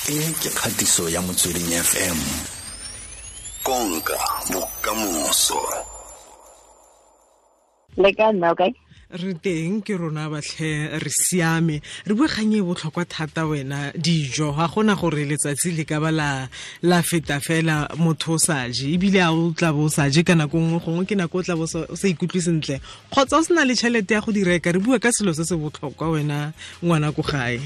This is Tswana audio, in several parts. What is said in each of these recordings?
E ke kgatiso ya Motsweding FM. Konka bokamoso. Le ka nna okay? Re teng ke rona batlhe, re siame. Re bua kgang e botlhokwa thata wena, dijo. Ga gona gore letsatsi le ka ba la feta fela motho o sa je, ebile a o tla bo o sa je ka nako nngwe, gongwe ke nako o tla bo o sa ikutlwe sentle kgotsa o sena le tšhelete ya go di reka. Re bua ka selo se se botlhokwa wena ngwana ko gae.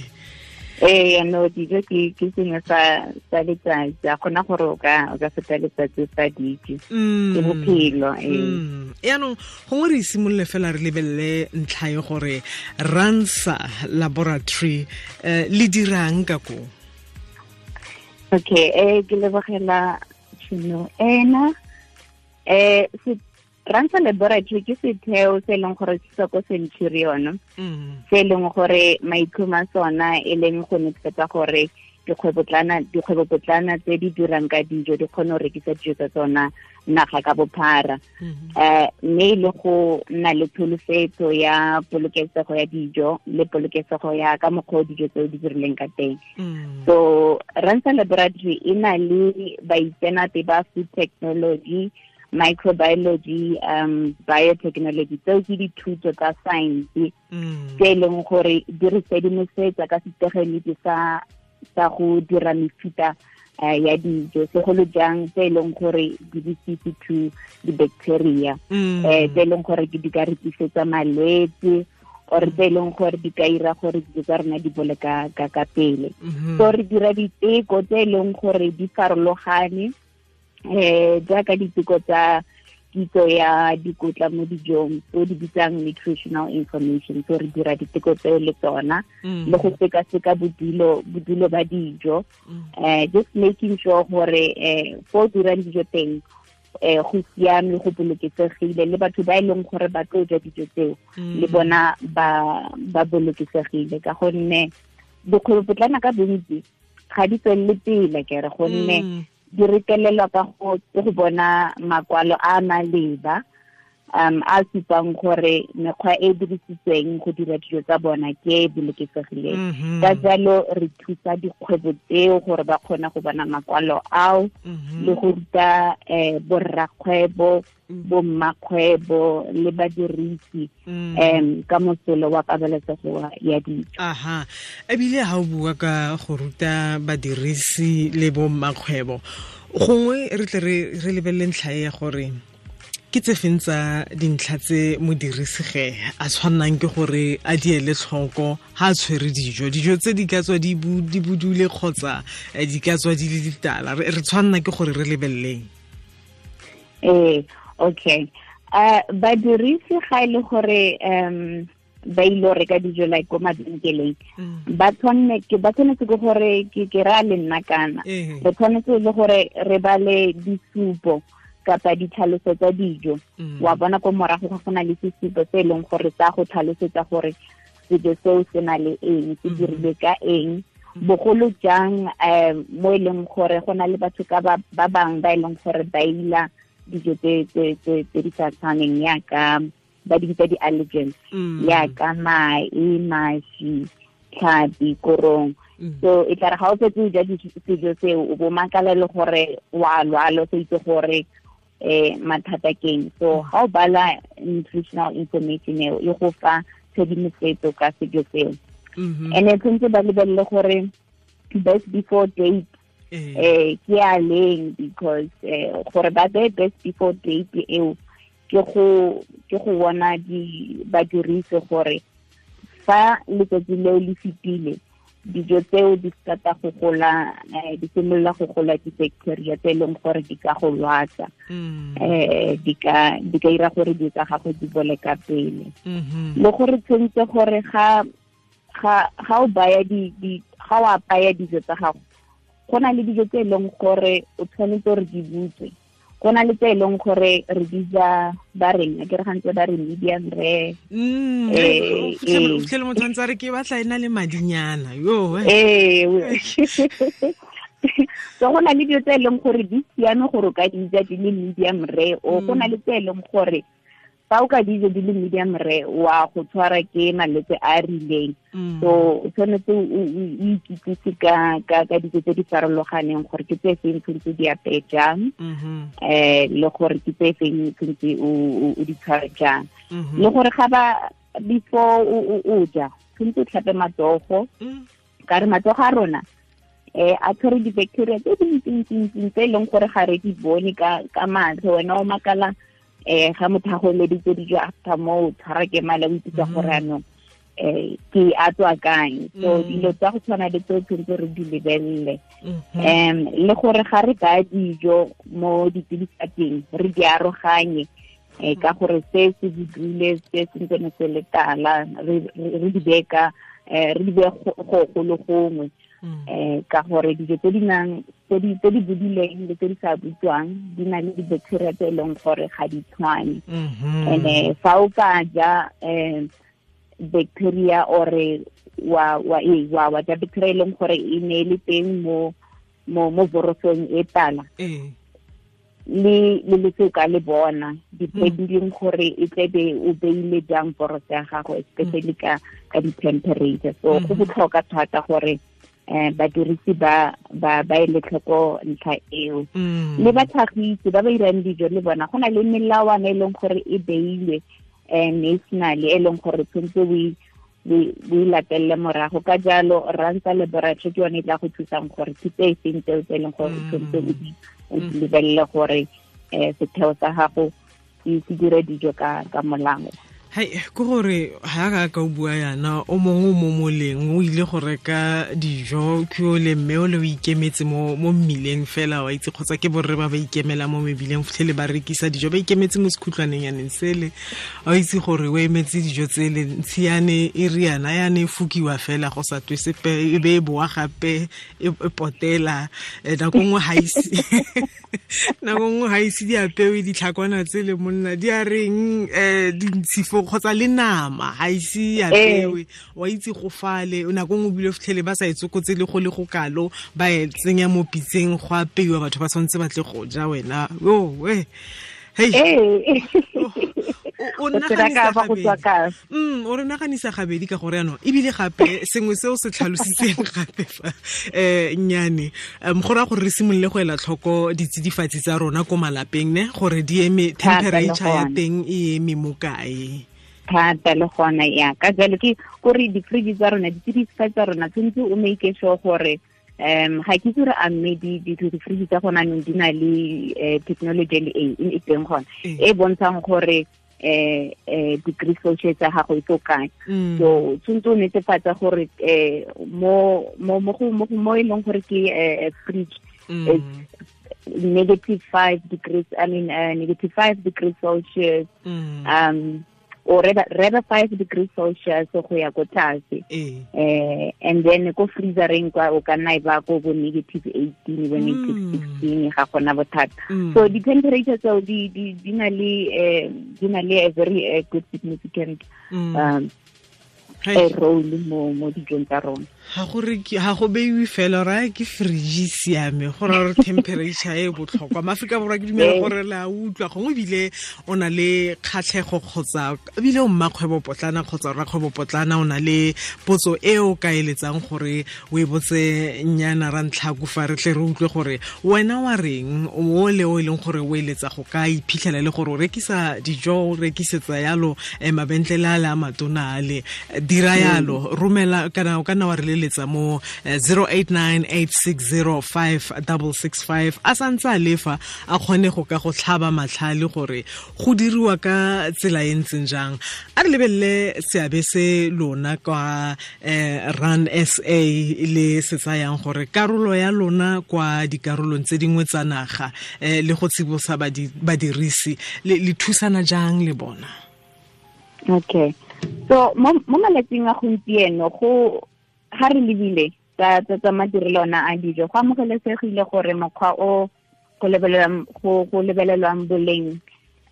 Ee, no, dijo ke sengwe sa letsatsi, a kgona gore o ka feta letsatsi sa dijo, ke bophelo. Ee. Yaanong gongwe re simolole fela re lebelele ntlha e gore Ransa Laboratory le dirang ka ko. Okay, ke lebogela tšhono ena. Ransa Laboratory ke setheo se e leng gore se tswa ko Centurion, se e leng gore maitlhomo a sona e leng go netefatsa gore dikgwebopotlana tse di dirang ka dijo di kgone go rekisa dijo tsa tsona naga ka bophara, mme le go nna le tsholofetso ya polokesego ya dijo le polokesego ya ka mokgwa o dijo tseo di dirileng ka teng. So Ransa Laboratory e na le baitseanape ba food technology, microbiology, biotechnology, tseo ke dithuto tsa science tse e leng gore di re sedimosetsa ka setegeniki sa go dira mefuta ya dijo, segolo jang tse e leng gore di resistant to di-bacteria, tse e leng gore di ka re tlisetsa malwetse or tse e leng gore di ka ira gore dijo tsa rona di bole ka pele. So re dira diteko tse e leng gore di farologane, jaaka diteko tsa kitso ya dikotla mo dijong tse di bitsang nutritional information. So re dira diteko tseo le tsona, le go sekaseka bodulo ba dijo, just making sure gore fo dirang dijo teng go siame, go bolokesegile, le batho ba e leng gore ba tlo ja dijo tseo le bona ba bolokesegile, ka gonne dikgwebopotlana ka bontsi ga di tswelele pele kere, gonne di retelelwa ka go bona makwalo a maleba a supang gore mekgwa e dirisitsweng go dira dijo tsa bona ke e bolokesegileng. Ka jalo re thusa dikgwebo tseo gore ba kgone go bona makwalo ao, le go ruta borrakgwebo, bommakgwebo le badirisi ka mosolo wa pabalesego ya dijo. Aha, ebile ha o bua ka go ruta badirisi le bommakgwebo, gongwe re tle re lebelele ntlha e ya gore ke tse feng tsa dintlha tse modirisi ge a tshwannang ke gore a di ele tlhoko ha a tshwere dijo, dijo tse di ka tswa di budule kgotsa di ka tswa di le ditala, re tshwanna ke gore re lebeleleng. Ee, okay. Badirisi ga e le gore ba ile go reka dijo like ko mabenkeleng, ba tshwanetse ke gore ke ra le nna kana re tshwanetse le gore re bale disupo kapa ditlhaloso tsa dijo. Wa bona ko morago ga go na le sesupo se e leng gore sa go tlhalosetsa gore sejo seo se na le eng, se dirilwe ka eng, bogolo jang mo e leng gore go na le batho ka ba bangwe ba e leng gore ba ila dijo tse di sa tshwaneng, yaka ba di bitsa di-allergens, yaka mae, maši, tlhapi, korong. So e tla re ga o fetse o ja sejo seo, o bo makala le gore wa lwala, o sa itse gore mathata keng. So ga o bala nutritional information eo, e go fa tshedimosetso ka sejo seo. And tshwanetse ba lebelele gore best before date ke a leng, because gore ba beye best before date eo ke go bona badirisi gore fa letsatsi leo le fetile, dijo tseo di start-a go gola, di simolola go gola di-bacteria tse e leng gore di ka go lwatsa, di ka ira gore dijo tsa gago di bole ka pele. Le gore tshwanetse gore ga o baya ga o apaya dijo tsa gago, go na le dijo tse e leng gore o tshwanetse gore di butswe, go na le tse e leng gore re di ja ba reng, ke re gantse ba re medium rare. Fitlhele motho a ntse a re ke batla e na le madinyana yo. Ee. So go na le dijo tse e leng gore di siame gore o ka di ja di le medium rare, o go na le tse e leng gore Fa o ka dijo di le medium rare wa go tshwara ke malwetse a a rileng. So o tshwanetse o ikitsise ka dijo tse di farologaneng gore ke tse feng tshwanetse di apeye jang, le gore ke tse feng tshwanetse o di tshware jang. Le gore ga ba before o ja tshwanetse o tlhape matsogo, ka re matsogo a rona a tshwere di-bacteria tse dintsintsi tse e leng gore ga re di bone ka matlho. Wena o makala ga motho a go eleditse dijo after moo tshwara ke mala o ipitsa gore anong ke a tswa kae. So dilo tsa go tshwana le tseo tshwanetse re di lebelele. Le gore ga re baya dijo mo ditsidifatsing re di aroganye, ka gore se se budule se se ntsene se le tala, re di beye re di beye go le gongwe. Ka gore dijo tse di nang tse di budileng le tse di sa butswang di na le di-bacteria tse e leng gore ga di tshwane. And fa o ka ja bacteria or wa ja bacteria e leng gore e ne le teng mo vorosong e tala, le le ka le bona depending gore e tlebe o beile jang voroso ya gago, especially ka di-temperature. So go botlhokwa thata gore badirisi ba ele tlhoko ntlha eo. Le batlhagisi ba ba irang dijo le bona go na le melawana e leng gore e beilwe nationally e leng gore tshwanetse o e latelele morago. Ka jalo Rantsa Laboratory ke yone e tla go thusang gore ke tse e seng tseo tse e leng gore tshwanetse o di lebelele gore setheo sa gago se dire dijo ka molao. Hai, ke gore ha ka o bua yana o mongwe mo moleng o ile go reka dijo ke o le mme o le o ikemetse mo mmileng fela wa itse, kgotsa ke borre ba ba ikemela mo mebileng fitlhele ba rekisa dijo ba ikemetse mo sekhutlwaneng yaneng sele, wa itse gore o emetse dijo tsele ntshiane e riana yane e fukiwa fela go sa twe sepe e be e boa gape e potela. Nako nngwe ga ise nako nngwe ga ise di apewe ditlhakwana tsele monna di a reng dintshifo kgotsa le nama ga ise apewe wa itse go fale. Nako nngwe bile fitlhele ba sa e tsokotse le go le go kalo ba e tsenya mo pitseng go apeiwa, batho ba tshwanetse ba tle go ja wena. Hey, o re naganisa gabedi ka gore yanong ebile gape sengwe seo se tlhalositseng gape fa nnyane go raya gore re simolole go ela tlhoko ditsidifatsi tsa rona ko malapeng ne gore di eme temperature ya teng e eme mo kae thata le gona ya ka jalo ke gore di-fridge tsa rona ditsidifatsi tsa rona tshwanetse o make sure gore ga ke itse gore a mme di-fridge tsa gona anong di na le technology le e teng gona e bontshang gore degree celsius tsa gago e tlo kae. So tshwanetse o netefatsa gore mo e leng gore ke fridge -5 degrees, I mean -5 degrees Celsius, or rather 5 degrees Celsius go ya ko tlase. And then ko freezereng kwa o ka nna e ba ko bo -18 bo -16 ga gona bothata. So di temperature tseo di na le a very good significant role mo dijong tsa rona. Ga go beiwe fela ra ke fridge siame go ra gore temperature e botlhokwa. Maaforika Borwa ke dumela gore le a utlwa, gongwe ebile o na le kgatlhego kgotsa ebile o mmakgwebo potlana kgotsa rrakgwebo potlana o na le potso e o ka eletsang gore o e botse nnyana ra ntlhaku fa re tle re utlwe gore wena wa reng o le o e leng gore o eletsa go ka iphitlhela le gore o rekisa dijo o rekisetsa yalo mabentlele a le a matona ale dira yalo romela kana o ka nna wa re leletsa mo 0898605665 a santse a lefa a kgone go ka go tlhaba matlhale gore go diriwa ka tsela e ntseng jang. A re lebelele seabe se lona kwa Run SA le se tsayang gore karolo ya lona kwa dikarolong tse dingwe tsa naga le go tsibosa badirisi le thusana jang le bona. Okay, so mo malatsing a gompieno go ga re lebile tsa madirelo ona a dijo go amogelesegile gore mokgwa o go lebelelwang boleng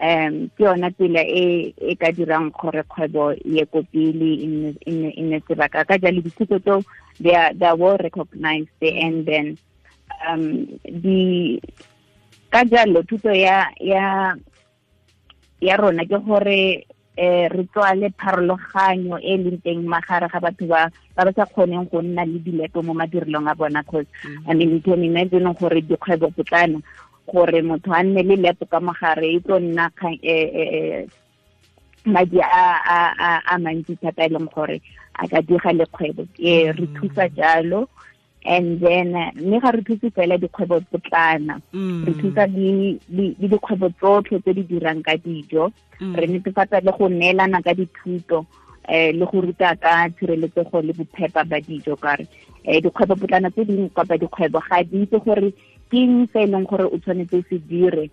ke yona tsela e e ka dirang gore kgwebo ye ko pele e nne sebaka. Ka jalo dithuto tseo they are well recognized, and then di ka jalo thuto ya ya rona ke gore re tswale pharologanyo e leng teng magare ga batho ba ba sa kgoneng go nna le dilepo mo madirelong a bona, cause I mean you can imagine gore dikgwebo potlana gore motho a nne le lepo ka mogare e tlo nna madi a mantsi thata e leng gore a ka diga le kgwebo. Re thusa jalo, and then mme ga re thuse fela dikgwebo potlana, re thusa le dikgwebo tsotlhe tse di dirang ka dijo. Re netefatsa le go neelana ka dithuto le go ruta ka tshireletsego le bophepa ba dijo, kare dikgwebo potlana tse dingwe kapa dikgwebo ga di itse gore ke eng se e leng gore o tshwanetse o se dire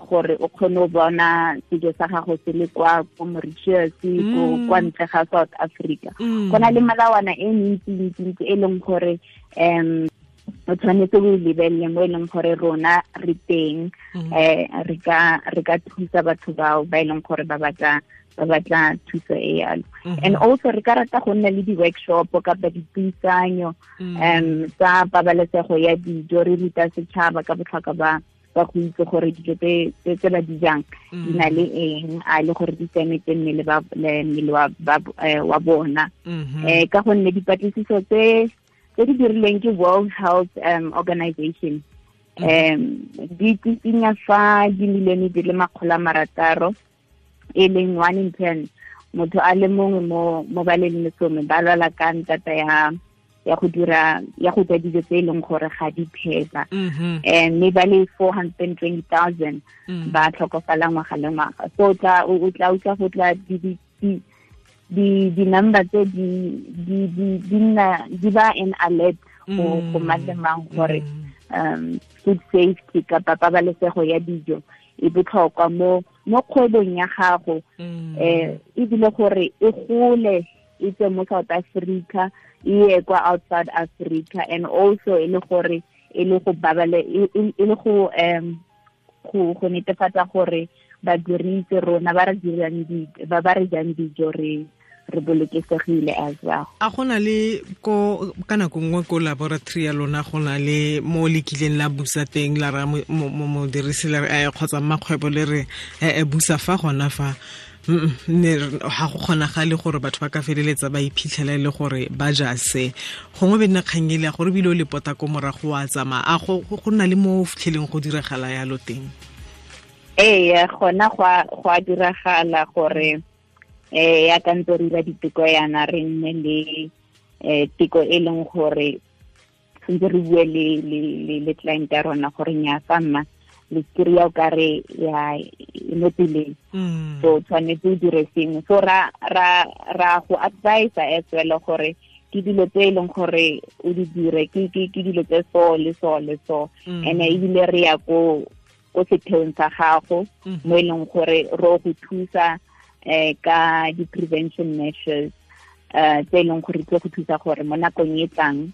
gore o kgone go bona sejo sa gago se le kwa ko Mauritius, ko kwa ntle ga South Africa. Go na le melawana e mentsi-ntsi e leng gore o tshwanetse o lebelele mo e leng gore rona re teng, re ka thusa batho bao ba e leng gore ba batla thuso e yalo. And also re ka rata go nna le di-workshop kapa dipuisanyo tsa pabalesego ya dijo, re ruta setšhaba ka botlhokwa ba go itse gore dijo tse ba di jang di na le eng, a le gore di siametse mmele wa bona. Ka gonne dipatlisiso tse di dirilweng ke World Health Organization di tsitsinya fa dimilione di le 600, e leng 1 in 10 motho a le mongwe mo ba leng lesome ba lwala ka ntata ya go dira ya go ja dijo tse e leng gore ga di phepa, mme ba le 420,000 ba tlhokofala ngwaga le ngwaga. So o tla utlwa go tla di number tse di nna di ba an alert go mang le mang gore food safety kapa pabalesego ya dijo e botlhokwa mo kgwebong ya gago, ebile gore e gole e tswe mo South Africa e ye kwa outside Africa, and also e le gore e le go babale e le go go netefatsa gore badirisi rona ba re dirang ba re jang dijo re bolokesegile as well. A gona le ko ka nako nngwe ko laboratory ya lona go na le mo le kileng la busa teng la ra modirisi la re kgotsa mmakgwebo le re busa fa gona fa ne ga go kgonagale gore batho ba ka feleletsa ba iphitlhela le gore ba ja se gongwe be nna kgang ele ya gore ebile o le pota ko morago wa tsamaya, a go nna le mo fitlheleng go diragala yalo teng? Ee, gona go a diragala gore ya ka ntse re dira diteko yana re nne le teko e leng gore ntse re bue le client ya rona gore nya fa mma le kry-a o kare ya mo tseleng, so tshwanetse o dire sengwe. So ra go advise as well gore ke dilo tse e leng gore o di dire ke dilo tse so le so le so, and ebile re ya ko setheong sa gago mo e leng gore ro go thusa ka di-prevention measures tse e leng gore tlo go thusa gore mo nakong e tlang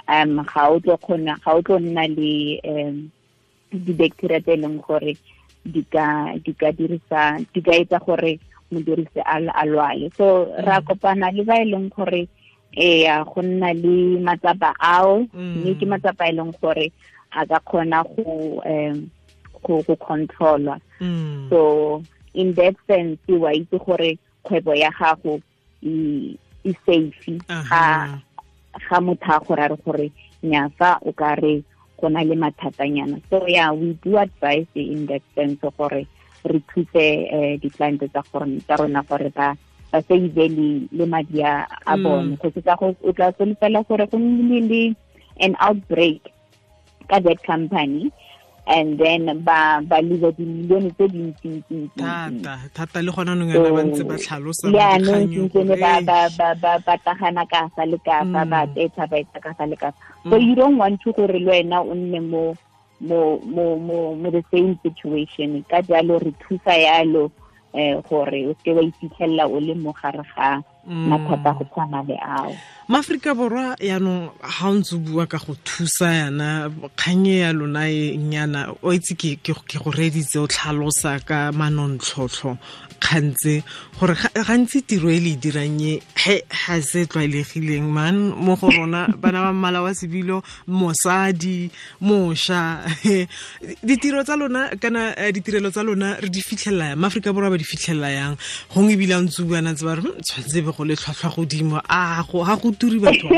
ga o tlo nna le di-bacteria tse e leng gore di ka etsa gore modirisi a lwale. So ra kopana le ba e leng gore go nna le matsapa ao, mme ke matsapa e leng gore a ka kgona go controlwa. So in that sense wa itse gore kgwebo ya gago e safe ga motho a gore a re gore nya fa o ka re go na le mathatanyana. So yeah, we do advise in that sense gore re thuse di-client tsa rona gore ba save le madi a bone, go tsa go o tla solofela gore go nnile le an outbreak ka that company, and then ba lose dimilione tse dintsi thata le gona nong yana ba ntse ba tlhalosa ba ba tagana ka fa le ka fa ba tetsa ba etsa ka fa le ka fa. So you don't want to gore le wena o nne mo the same situation. Ka jalo re thusa yalo gore o se wa iphitlhela o le mo gare ga mathata go tshwana le ao. Maaforika Borwa yaanong ga o ntse o bua ka go thusa yana kgang e ya lona e nyana o itse ke go reeditse o tlhalosa ka manontlhotlho dikgang tse gore gantsi tiro e le dirang e ga se tlwaelegileng man mo go rona bana ba mmala wa sebilo, mosadi, mosha. Ditiro tsa lona kana ditirelo tsa lona re di fitlhelela yang? Maaforika Borwa ba di fitlhelela yang? Gongwe ebile a ntse buana tse ba re tshwanetse be go le tlhwatlhwa godimo, a ga go turi batho.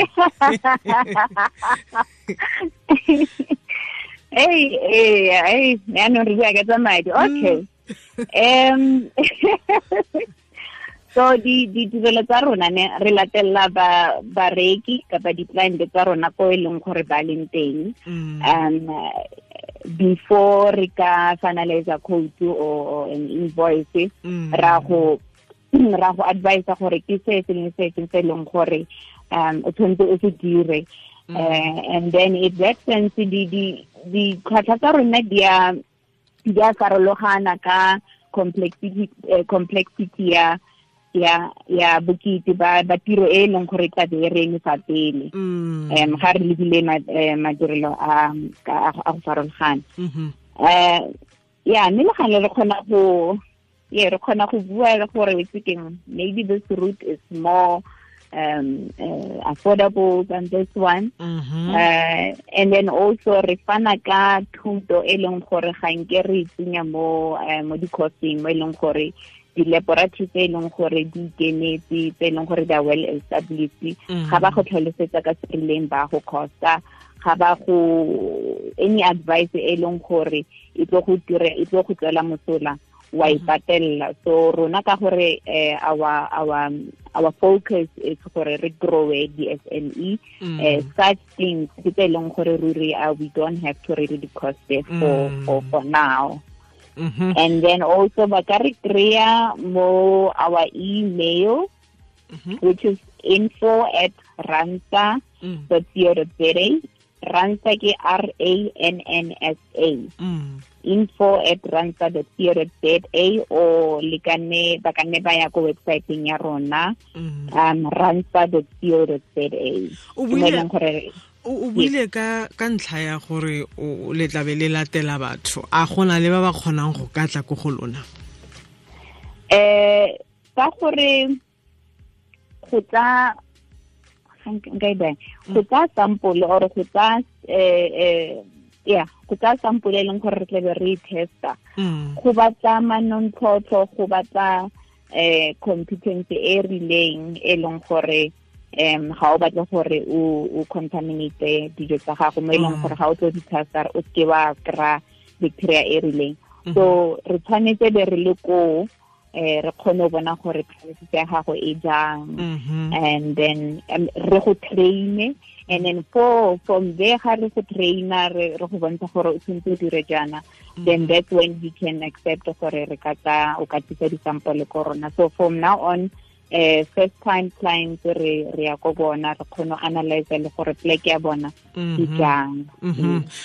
Hey, yaanong re bua ka tsa madi. Okay. So ditirelo tsa rona ne re latella bareki kapa di-client tsa rona ko e leng gore ba leng teng. Before re ka finalize a quote or an invoice, ra go advise gore ke se sengwe se se leng gore o tshwanetse o se dire. And then in that sense, ditlhwatlhwa tsa rona di a farologana ka complexity ya bokete ba tiro e leng gore tla be re eme fa pele. Ga re lebile madirelo a go farologana. Ya mme le gane re kgona go bua le gore itse keng, maybe this route is more affordable than this one. And then also re fana ka thuto e leng gore ga nke re tsenya mo di-courseng mo e leng gore di-laboratory tse e leng gore di ikemetse, tse e leng gore they are well established, ga ba go tlhalosetsa ka se rileng ba go costa, ga ba go any advice e leng gore e tlo go tswela mosola wa e patella. So rona ka gore our focus is gore re grow the SME, such things ke tse leng gore ruri we don't have to really cost it for now. And then also ba ka re kry-a mo our email, which is info@ransa.co.za. Ransa ke RANNSA. info@ransa.co.za, o le ka nne ba ka nne ba ya ko website-eng ya rona, ransa.co.za. O buile ka ntlha ya gore o le tlabe le latela batho, a gona le ba ba kgonang go ka tla ko go lona? Ka gore go tsa go tsa sample or go tsa go tsa sample e leng gore re tlabe re testa, go batla manontlhotlho, go batla competence e rileng e leng gore ga o batle gore o contaminate dijo tsa gago mo e leng gore ga o tlo di testa o seke wa kry-a bacteria e rileng. So re tshwanetse be re le koo, re kgone go bona gore premises ya gago e jang, and then re go train, and then from there ga re go traina re go bontsha gore o tshwanetse o dire jaana, then that's when we can accept gore re ka tsa o ka tlisa di-sample ko rona. So from now on, first time clients re ya ko bona, re kgone go analyze le gore plek ya bona ke jang.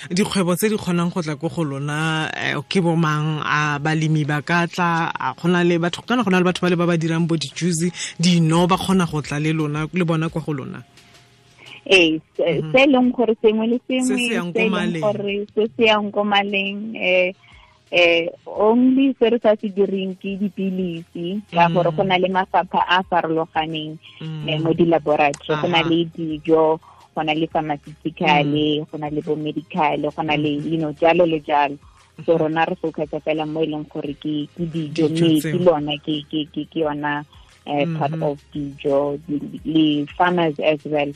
Dikgwebo tse di kgonang go tla ko go lona ke bo mang? A balemi ba ka tla? A gona le batho kana gona le batho ba le ba ba dirang bo di-juice, dino, ba kgona go tla le lona le bona kwa go lona? Ee, se leng gore sengwe le sengwe se leng gore se se yang ko maleng, only se re sa se direng ke dipilisi, ka gore go na le mafapha a farologaneng mo di-laboratory. Go na le dijo, go na le pharmaceutical, go na le bo medical, go na le you know jalo le jalo. So rona re focus fela mo e leng gore ke dijo, mme ke lona ke yona part of dijo le farmers as well.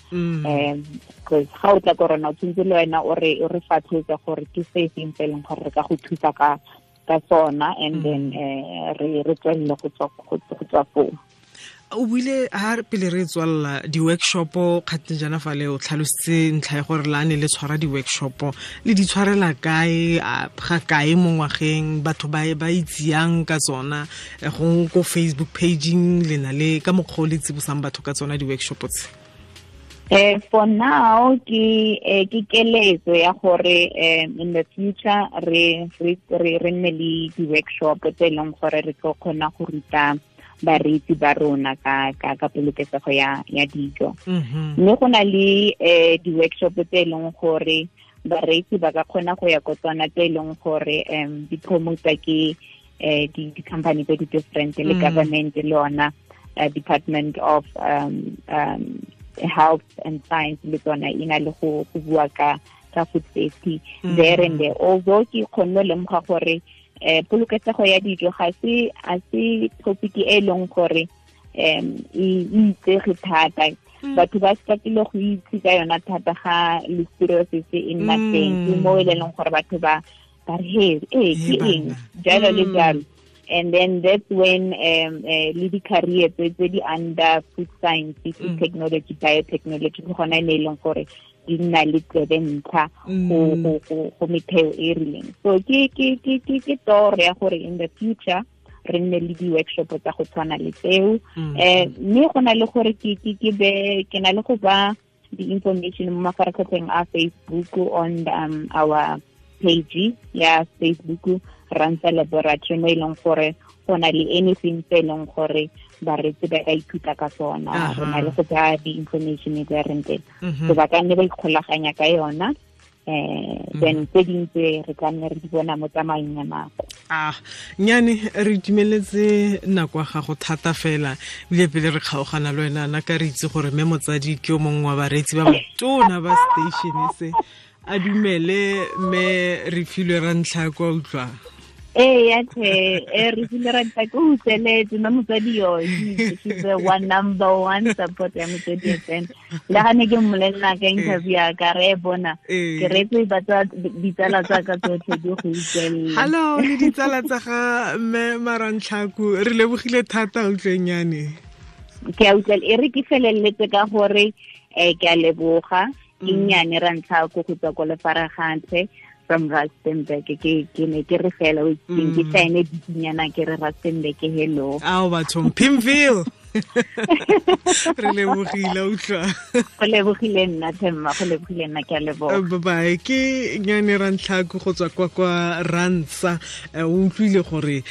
Because ga o tla ko rona o tshwanetse le wena o re fatlhotse gore ke se seng se e leng gore re ka go thusa ka sona, and then re tswelele go tswa foo. O buile ha pele re tswalla di-workshop kgateng jaana fa le o tlhalositse ntlha ya gore lane le tshwara di-workshop, le di tshwarela kae, ga kae mo ngwageng, batho ba itseyang ka tsona, gongwe ko Facebook pageng le na le ka mokgwa o le tsibosang batho ka tsona di-workshop tse? For now ke keletso ya gore in the future re nne le di-workshop tse e leng gore re tlo kgona go ruta bareetsi ba rona ka polokesego ya dijo. Mme go na le di-workshop tse e leng gore bareetsi ba ka kgona go ya ko tsona, tse e leng gore di promota ke di company tse di different le government le yona Department of Health and Science le tsona e na le go bua ka food safety there and there. Although ke kgonne lemoga gore polokesego ya dijo ga se topic e leng gore e itsege thata. Batho ba startile go itse ka yona thata ga listeriosis e nna teng, ke mo e leng gore batho ba re he ke eng jalo le jalo. And then that's when le di-career tse di under food science, food technology, biotechnology, ke gona e leng gore di nna le tsebe ntlha go metheo e rileng. So ke toro ya gore in the future re nne le di-workshop tsa go tshwana le tseo. Mme go na le gore ke na le go ba di-information mo mafaratlhatlheng a Facebook on our page ya Facebook Ransa Laboratory, mo e leng gore go na le anything tse e leng gore bareetsi ba ka ithuta ka tsona. Re na le go tsaya di-information e tse reng teng, so ba ka nne ba ikgolaganya ka yona. Then tse dingwe tse re tla nne re di bona mo tsamaong ya nako. Nyane re itumeletse nako ya gago thata fela, ebile pele re kgaogana le wena na ka re itse gore mme motsadi ke o mongwe wa bareetsi ba batona ba station se a dumele mme re filwe ra ntlha kwa utlwa. Ee, re filwe ra ntlha ko utlweletse mme motsadi yo, she's the one number one support ya Motswedi FM. Le ga ne ke mmolelela ka interview ya ka re bona ke reetse ditsala tsa ka tsotlhe di go utlwelela. Hello le ditsala tsa ga mme Marantlhaku, re lebogile thata utlwenyane. Ke a utlwela, e re ke feleletse ka gore ke a leboga. Ke nnyane ra ntlha ko go tswa ko Lefaragatlhe from Rustenburg. Ke ne ke re fela o itseng ke saene dikinyana ke re Rustenburg hello. Ao bathong Pimville. Re lebogile utlwa. Go lebogile nna Themma, go lebogile nna, ke a leboga. Bye bye. Ke Nyane Rantlhaku go tswa kwa Ransa. O utlwile gore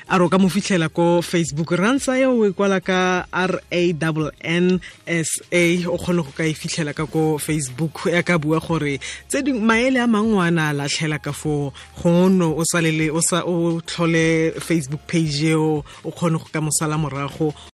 a ro ka mo fitlhela ko Facebook. Ransa eo o e kwala ka RANNSA, o kgone go ka e fitlhela ka ko Facebook. Ya ka bua gore tse dingwe maele a mangwe a na a latlhela ka foo, gongwe o salele o sa o tlhole Facebook page eo o kgone go ka mosala morago.